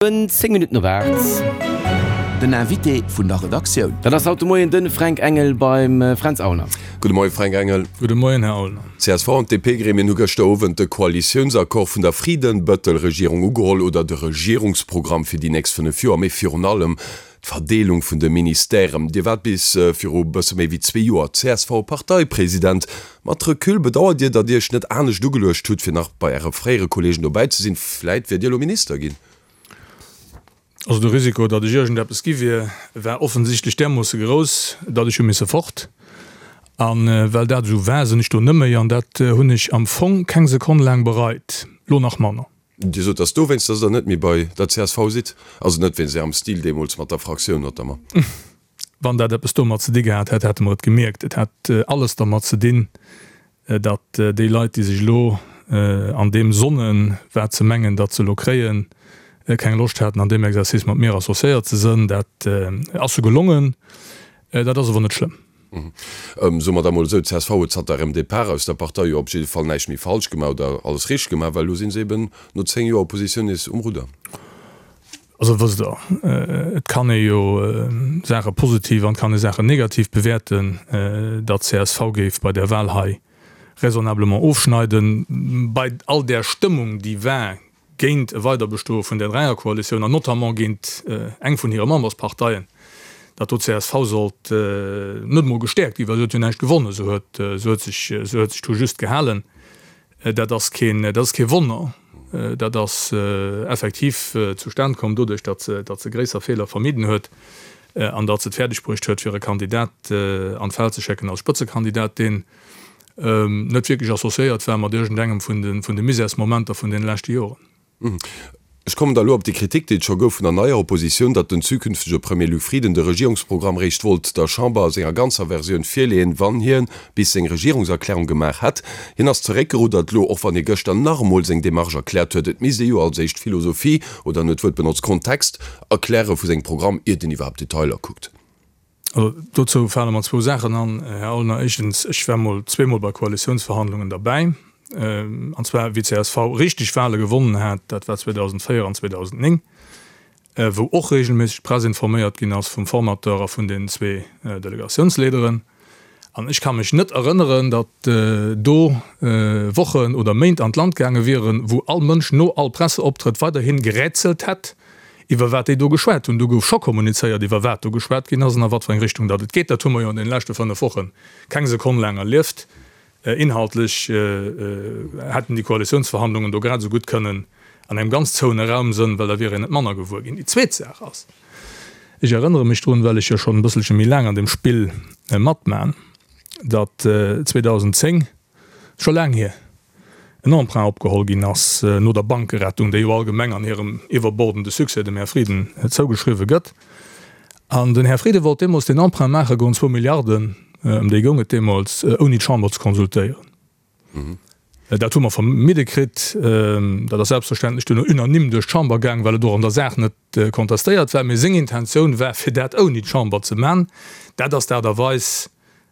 10 Minutten op 8. Den Invité vun der Redaktioun. Dat ass haut de Moien de Fränk Engel beim Fränz Aulner. Gudde Moien, Fränk Engel. Gudde Moien, Här Aulner. D'CSV an d'DP-Gremien hu gëschter Owend de Koalitiounsaccord vun der Frieden-Bëttel-Regierung ugeholl, oder de Regierungsprogramm fir déi nächst 5 Joer, mee virun allem d'Verdeelung vun de Ministèren. Dir waart bis viru bësse méi wéi zwee Joer CSV-Parteipresident. Mat Recul, bedauert Dir, datt Dir Iech net anescht ugeluecht hutt, fir nach bei Äre fréiere Kolleegen dobäi ze sinn? Vläit wiert Dir elo Minister ginn? Also de Risiko, datt ech iergendeppes gi wier, war offensichtlech därmoosse grouss, datt ech hu misse fort. A well dat esou war, sinn ech do net méi. An dat hunn ech am Fong keng Sekonn laang bereit, lo nach manner. Dir sot, datt dowéinst, datt Der net méi bei der csv sidd, also net wéinst Ärem Stil deemools mat der Fraktioun notamment. Wann dat eppes domat ze di gehat hätt, hätte mer et gemierkt. Et hat alles dermat ze dinn, datt déi Leit, déi sech elo an deem sonnen, wat se mengen, datt se elo kréien, keng Loscht haten, an deem Exercice mat mir associéiert ze sënn. Dat ass se gelongen. Dat ass awer net schlëmm. Soe mer da mol esou, d'CSV huet zanter ärem Depart aus der Partei jo op jidde Fall näischt méi falsch gemaach oder alles richteg gemaach, well elo si se eben no 10 Joer Oppositioun nees um Rudder. Also wësst Der, et kann ee jo Saache positiv an et kann ee Saachen negativ bewäerten. Datt csv géif bei där Wahl hei raisonnablement ofschneiden, bei all där Stëmmung déi war géint e Weiderbestoe vun där Dräierkoalitioun an notamment géint eng vun hire Membersparteien, datt do csv sollt net emol gestäerkt ginn, well se huet jo näischt gewonnen, se huet sech, se huet sech do just gehalen. Dat ass keen, dat ass kee Wonner. Dat ass effektiv zustan komm doduerch, datt se, datt se gréisser Feeler vermidden huet an datt se et fäerdeg bruecht huet, fir e Kandidat an d'Feld ze schécken als Spëtzekandidat, deen net wierklech associéiert war mat iergendengem vun de, vun de Misärsmomenter vun deene leschte Joren. Ech kommen da elo op déi Kritik, déi et scho gouf vun der neier Oppositioun, datt den zukünftege Premier Luc Frieden de Regierungsprogramm réischt wollt der Chamber a senger ganzer Versioun virleeën, wann hien bis seng Regierungserklärung gemaach hätt. Hien ass zeréckgeruddert elo, och wann hie gëschter nach emol seng Demarche erkläert huet, et misst ee jo als éischt d'Philosophie, oder en huet d'Wuert benotzt, Kontext erkläre vu sengem Programm, iert een iwwerhaapt Detailer kuckt. Also dozou fale mer zwou Saachen an, Här Aulner. Éischtens, ech war mol zweemol bei Koalitiounsverhandlungen derbäi, an zwar wéi csv richteg Wahle gewonnen hat, dat war 2004 an 2009, wou och regelméisseg d'Press informéiert ginn ass vum Formateur a vun den zwee Delegatiounsleaderen. An ech ka mech net erënneren, datt do Wochen oder Méint an d'Land gaange wieren, wou all Mënsch no all Presseoptrëtt weiderhi gerätselt hätt, iwwer wat déi do geschwat hunn. Do gouf scho kommunizéiert, iwwer wat do geschwat ginn ass an a wat fir eng Richtung datt et geet. Dat hu mer jo an deene leschte 5 Woche keng Sekonn laang erlieft. Inhaltlech hätten déi Koalitiounsverhandlungen do grad esou gutt kënnen an engem ganz zouene Raum sënn, well da wier een net manner gewuer ginn. Déi zweet Saach ass, ech erënnere mech drun, well ech jo schonn e bësselche méi laang an deem Spill matman, datt 2010, scho laang hier, en Emprunt opgeholl ginn ass no der Bankerettung, déi jo allgemeng an hirem iwwerbordende Succès dem Här Frieden zougeschriwwe gëtt. An den Här Frieden wollt deemools deen Emprunt maache goen, zwou Milliarden, ëm déi goung et deemools, ouni d'Chamber ze konsultéieren. Dat hu mer vermidde kritt. Dat ass selbstverständlech duerno unanime duerch d'Chamber gaang, well et och an der Saach net contestéiert war. Mee seng Intentioun war, fir dat ouni d'Chamber ze man. Dat ass d'Aart a Weis,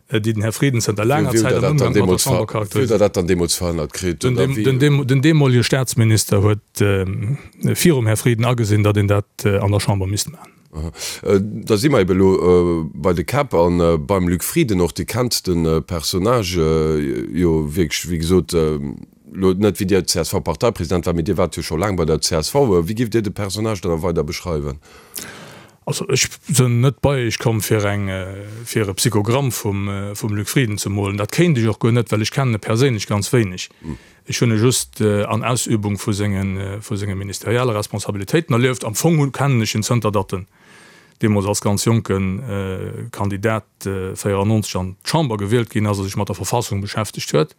déi den Här Frieden zënter laanger Zäit am Ëmgang mat der Chamber charakteriséiert. Wéi hutt Der dat dann deemools verhënnert kritt? Den deemolege Staatsminister huet virum Här Frieden agesinn, datt een dat an der Chamber misst maachen. Da si mer ebe elo bei de Käpp a beim Luc Frieden och. Dir kennt de Personnage jo wierklech, wéi gesot, elo net wéi Dir CSV-Parteipresident waart, mee Dir waart jo scho laang bei der csv. Wéi giff Dir de Personnage dann weider beschreiwen? Also ech sënn net bei iech komm fir eng fir e Psychogramm vum vum Luc Frieden ze molen. Dat kéint ech och guer net, well ech kennen e perséinlech ganz wéineg. Ech hunn e just an Ausübung vu senge vu senge ministerielle Responsabilitéiten erlieft. Am Fong hu kennen ech en zënter datt en deemools als ganz jonke Kandidat 94 an d'Chamber gewielt ginn ass a sech mat der Verfassung beschäftegt huet.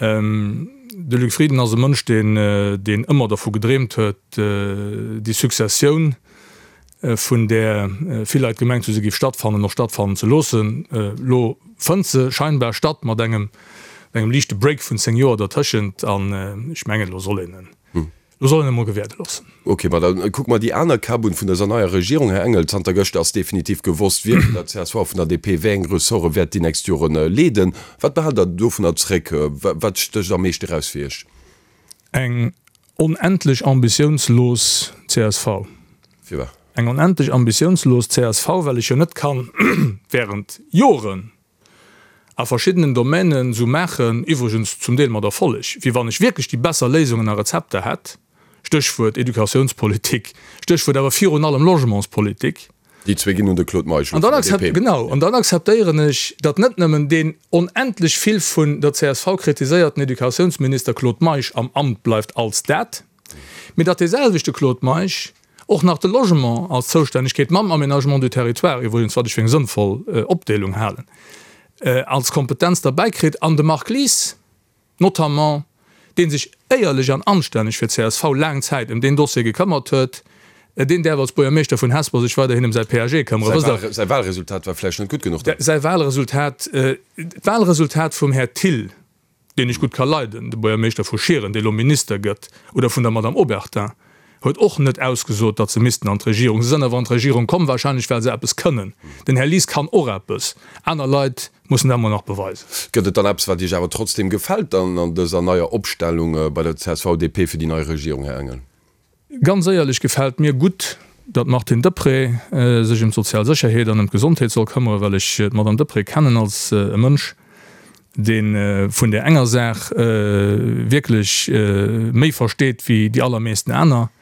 De Luc Frieden ass e Mënsch, deen, deen ëmmer dervu gedreemt huet, déi Successioun, vun där vill Leit gemengt hu se géif stattfannen, och stattfannen ze loossen. Elo fënnt se scheinbar statt, mat engem, engem liichte Break vun 10 Joer dertëschent. An ech mengen, elo soll een en. Lo soll een emol gewäerde loossen. Ok, ma da kucke mer déi aner Käpp un vun dëser neier Regierung. Här Engel, zanter gëschter ass definitiv gewosst, wie vun der csv a vun der DP wéi eng Ressorte wäert déi nächst Jore leeden. Wat behaalt Der dovunner zréck? Wat stécht am meeschte eraus fir Iech? Eng. onendlech ambitiounslos csv. Firwat? Eng onendlech ambitiounslos csv, well ech jo net kann während Joren a verschiddenen Domänen esou maachen, iwwregens zum Deel mat Erfolleg, wéi wann ech wierklech déi besser Léisungen a Rezepter hätt, Stéchwuert Educatiounspolitik, Stéchwuert awer virun allem Logementspolitik. Déi zwee ginn un de Claude Meisch elo vun der DP. Genau, an dann akzeptéieren ech, datt net nëmmen deen onendlech vill vun der csv kritiséierten Educatiounsminister Claude Meisch am Amt bleift als dat, mee datt deeselwechte Claude Meisch och nach de Logement als Zoustännegkeet mam Aménagement du territoire, iwwregens wat ech fir eng sënnvoll Opdeelung halen, als Kompetenz derbäikritt an de Marc Lies, notamment, dee sech éierlech an anstänneg fir csv laang Zäit ëm deen Dossier gekëmmert huet, deen däerf als Buergermeeschter vun Hesper sech weiderhin ëm säi PAG këmmeren. Wësst Der. Säi Wahlresultat war vläicht net gutt genuch dann? Säi Wahlresultat, d'Wahlresultat vum Här Thill, deen ech gutt ka leiden, de Buergermeeschter vu Schieren, dee lo Minister gëtt, oder vun der Madame Obertin, huet och net ausgesot, datt se missten an d'Regierung. Se sënn awer an d'Regierung komm, wahrscheinlech well se eppes kënnen. Den Här Lies kann och eppes, aner Leit mussen dat emol nach beweisen. Gëtt et dann eppes, wat Iech awer trotzdem gefält dann an dëser neier Opstellung bei der CSV-DP fir déi nei Regierung, Här Engel? Ganz éierlech gefält mir gutt, datt d'Martine Deprez sech ëm d'sozial Sécherheet an ëm d'Gesondheet soll këmmere, well ech d'Madame Deprez kennen als e Mënsch, dee vun där enger Saach wierklech méi versteet wéi déi allermeesten aner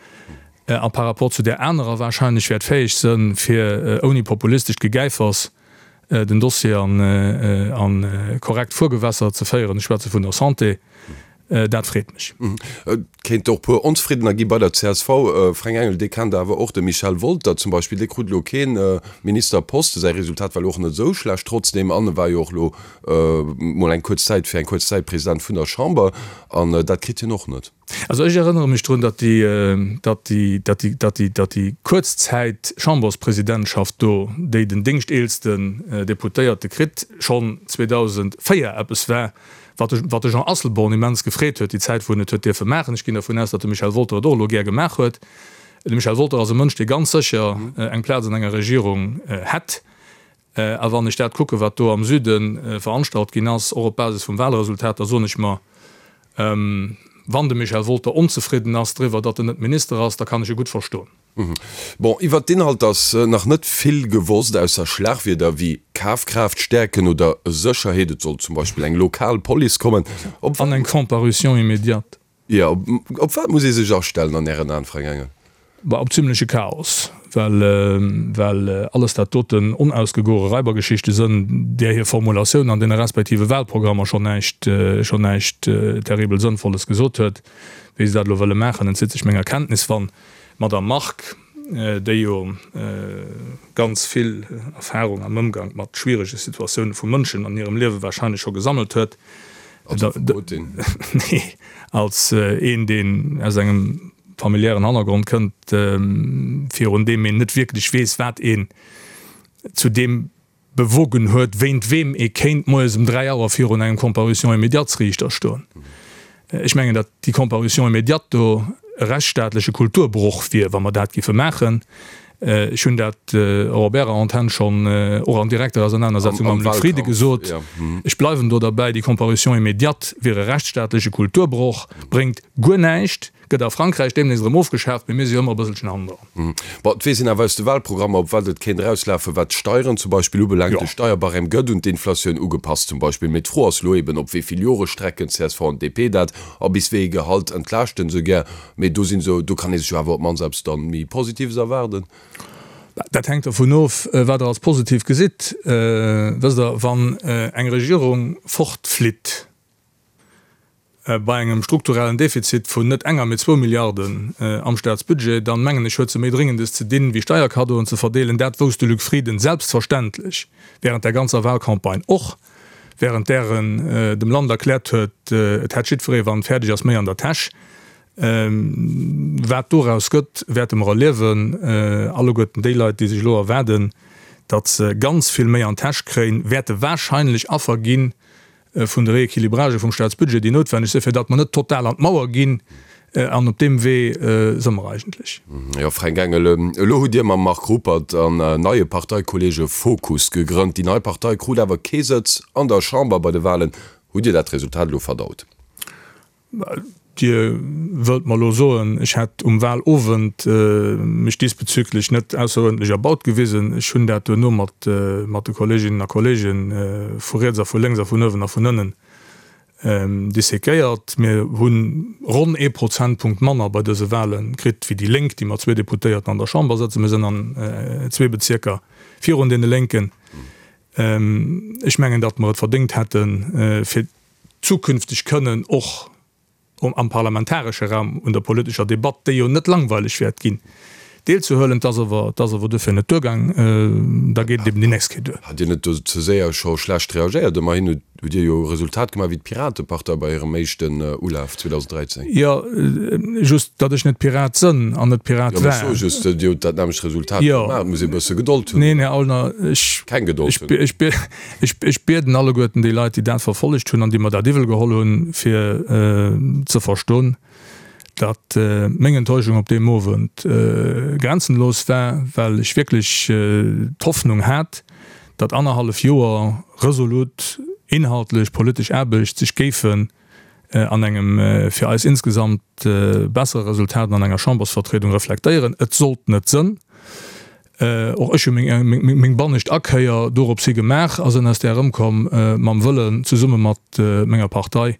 a par rapport zu där anerer wahrscheinlech wäert fäeg sënn, fir ouni populistescht Gegäifers den Dossier an korrekt Fuergewässer ze féieren. Ech schwätze vun der Santé. Dat freet mech. Et kéint och puer Onzefriddener gi bei der csv. Fränk Engel, Dir kennt awer och de Michel Wolter zum Beispill, dee krut elo kee Ministerposte. Säi Resultat war elo och net esou schlecht trotzdeem an e war jo och elo mol eng kuerz Zäit, fir eng kuerz Zäit President vun der Chamber an dat kritt hien och net. Also ech erënnere mech drun, datt déi, datt déi, datt déi, datt déi, datt déi kuerz Zäit-Chamberspresidentschaft do, déi den déngschteelsten Deputéierte kritt, schonn 2004 eppes war, wat de, wat de Jean Asselborn immens gefreet huet, déi Zäit wou en et huet dierfe maachen. Ech ginn dervun aus, datt de Michel Wolter et och elo gär gemaach huet. De Michel Wolter ass e Mënsch, dee ganz sécher eng Plaz an enger Regierung hätt. A wann ech dat kucken, wat do am Süde veranstalt ginn ass, och op Basis vum Wahlresultat, da soen ech mer, wann de Michel Wolter onzefridden ass driwwer, datt en net Minister ass, da kann ech e gutt verstoen. Bon, iwwert d'Inhalter ass nach net vill gewosst, ausser Schlagwierder wéi Kafkraaft stäerken oder Sécherheet. Et soll zum Beispill eng lokal Police kommen. Op An eng Comparution immédiate. Jo, op wat muss ee sech astellen an Ären Aen, Fränk Engel? Bah, op zimleche Chaos, well, well alles dat doten onausgegore Raibergeschichte sënn, där hir Formulatioun an deene respektive Wahlprogrammer schonn näischt, schonn näischt terribel Sënnvolles gesot huet. Wéi se dat elo wëlle maachen, entzitt sech menger Kenntnis. Wann d'Madame Margue, déi jo ganz vill Erfahrung am Ëmgank mat schwierege Situatioune vu Mënschen an hirem Liewe wahrscheinlech scho gesammelt huet, Als Affekotin? Nee, als een, deen aus engem familiären Hannergrond kënnt, virun deem een net wierklech weess, wat een zu deem bewogen huet, wéint weem ee kéint moies um 3 Auer virun engem Comparution immédiates-Riichter stoen. Ech mengen, datt déi Comparution immédiate do e rechtsstaatleche Kulturbroch wier, wa mer dat giffe maachen. Ech hunn dat och op Ärer Antenn schonn, och an direkter Ausernanersetzung mam Luc Frieden gesot. Ech bleiwen do derbäi, déi Comparution immédiate wier e rechtsstaatleche Kulturbroch, bréngt guer näischt, gëtt a Frankräich deemnächst erëm ofgeschaaft, mee mir si jo ëmmer e bësselchen hannendran. Bon, et weess een awer aus de Wahlprogrammer, op wat et kéint erauslafen, wat d'Steieren zum Beispill ubelaangt. De Steierbarème gëtt un d'Inflatioun ugepasst zum Beispill. Mee d'Fro ass elo eben, op wéi vill Jore strecken csv an DP dat a bis wéi ee Gehalt entlaaschten se gär. Mee do sinn se, do kann ee sech jo awer op d'mannst eppes dann méi Positives erwaarden. Dat hänkt dervun of, wat Der als positiv gesitt. Wësst Der, wann eng Regierung fortflitt bei engem strukturellen Defizit vun net enger, mee zwou Milliarden am Staatsbudget, dann, mengen ech, huet se méi Dréngendes ze dinn, wéi Steierkaddoen ze verdeelen. Dat wousst de Luc Frieden selbstverständlech während der ganzer Wahlcampagne och, während där en dem Land erkläert huet, et hätt jiddweree, wann et fäerdeg ass, méi an der Täsch. Wat doraus gëtt, wäerte mer erliewen. Alleguerten déi Leit, déi sech elo erwaarden, datt se ganz vill méi an d'Täsch kréien, wäerte wahrscheinlech Affer gi vun de Rééquilibragë vum Staatsbudget, déi noutwenneg sinn, fir datt mer net total an d'Mauer ginn. An op deem Wee si mer eigentlech. Jo, Fränk Engel, elo hutt Dir mam Marc Ruppert an neie Parteikolleege Fokus gegrënnt. Déi nei Partei krut awer kee Sëtz an der Chamber bei de Walen. Hutt Dir dat Resultat elo verdaut? Dir wëllt mer elo soen, ech hätt um Wahlowend mech diesbezüglech net ausseruerdentlech erbaut gewisen. Ech hunn dat duerno mat de Kolleeginnen a Kolleege vu riets a vu lénks a vun uewen a vun ënnen dissequéiert. Mir hu ronn ee Prozentpunkt manner bei dëse Wahle kritt wéi déi Lénk, déi mat zwee Deputéierten an der Chamber sëtzen. Mir sinn an zwee Bezierker virun deene Lénken. Ech mengen, datt mer et verdéngt hätten, fir zukünfteg kënnen och am parlamentaresche Raum un der politescher Debatt, déi jo net langweileg wäert ginn, deelzehuelen. Et ass awer, et ass awer duerfir net duergaang. Da geet et eben déi nächst Kéier duer. Hat Dir net do ze séier scho schlecht reagéiert? Ëmmerhin hutt Dir jo e Resultat gemaach wéi d'Piratepartei bei hirem éischten Ulaf 2013. Jo, just datt ech net Pirat sënn an net Pirat war. Jo, mä ech soe just, Dir hutt dat nämmlecht Resultat gemaach. Et muss ee bësse Gedold hunn. Neen, Här Aulner, ech. Keng Gedold hunn. Ech, ech bieden alleguerten déi Leit, déi dat verfollegt hunn an déi mer dat iwwel geholl hunn, fir ze verstoen, datt meng Enttäuschung op deem Owend grenzenlos war, well ech wierklech d'Hoffnung hat, datt annerhallef Joer resolut inhaltlech politesch Aarbecht sech géifen an engem fir eis insgesamt bessere Resultat an enger Chambersvertriedung reflektéieren. Et sollt net sënn. Och ech hu meng bannescht Akéier dorops hi gemaach a sënn aus där erëmkomm mam Wëllen, zesumme mat menger Partei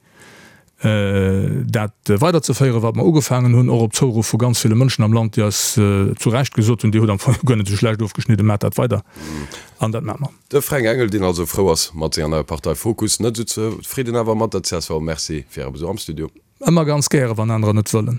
dat weiderzeféieren, wat mer ugefaangen hunn, och op Zouruff vu ganz ville Mënschen am Land, déi eis zu Recht gesot hunn, Dir hutt am Fong guer net esou schlecht ofgeschnidden, maacht dat weider. An dat maache mer. De Fränk Engel, deen also frou ass mat senger neier Partei Fokus, net esou zefridden awer mat der csv. Merci fir Äre Besuch am Studio. Ëmmer ganz gäre, wann anerer net wëllen.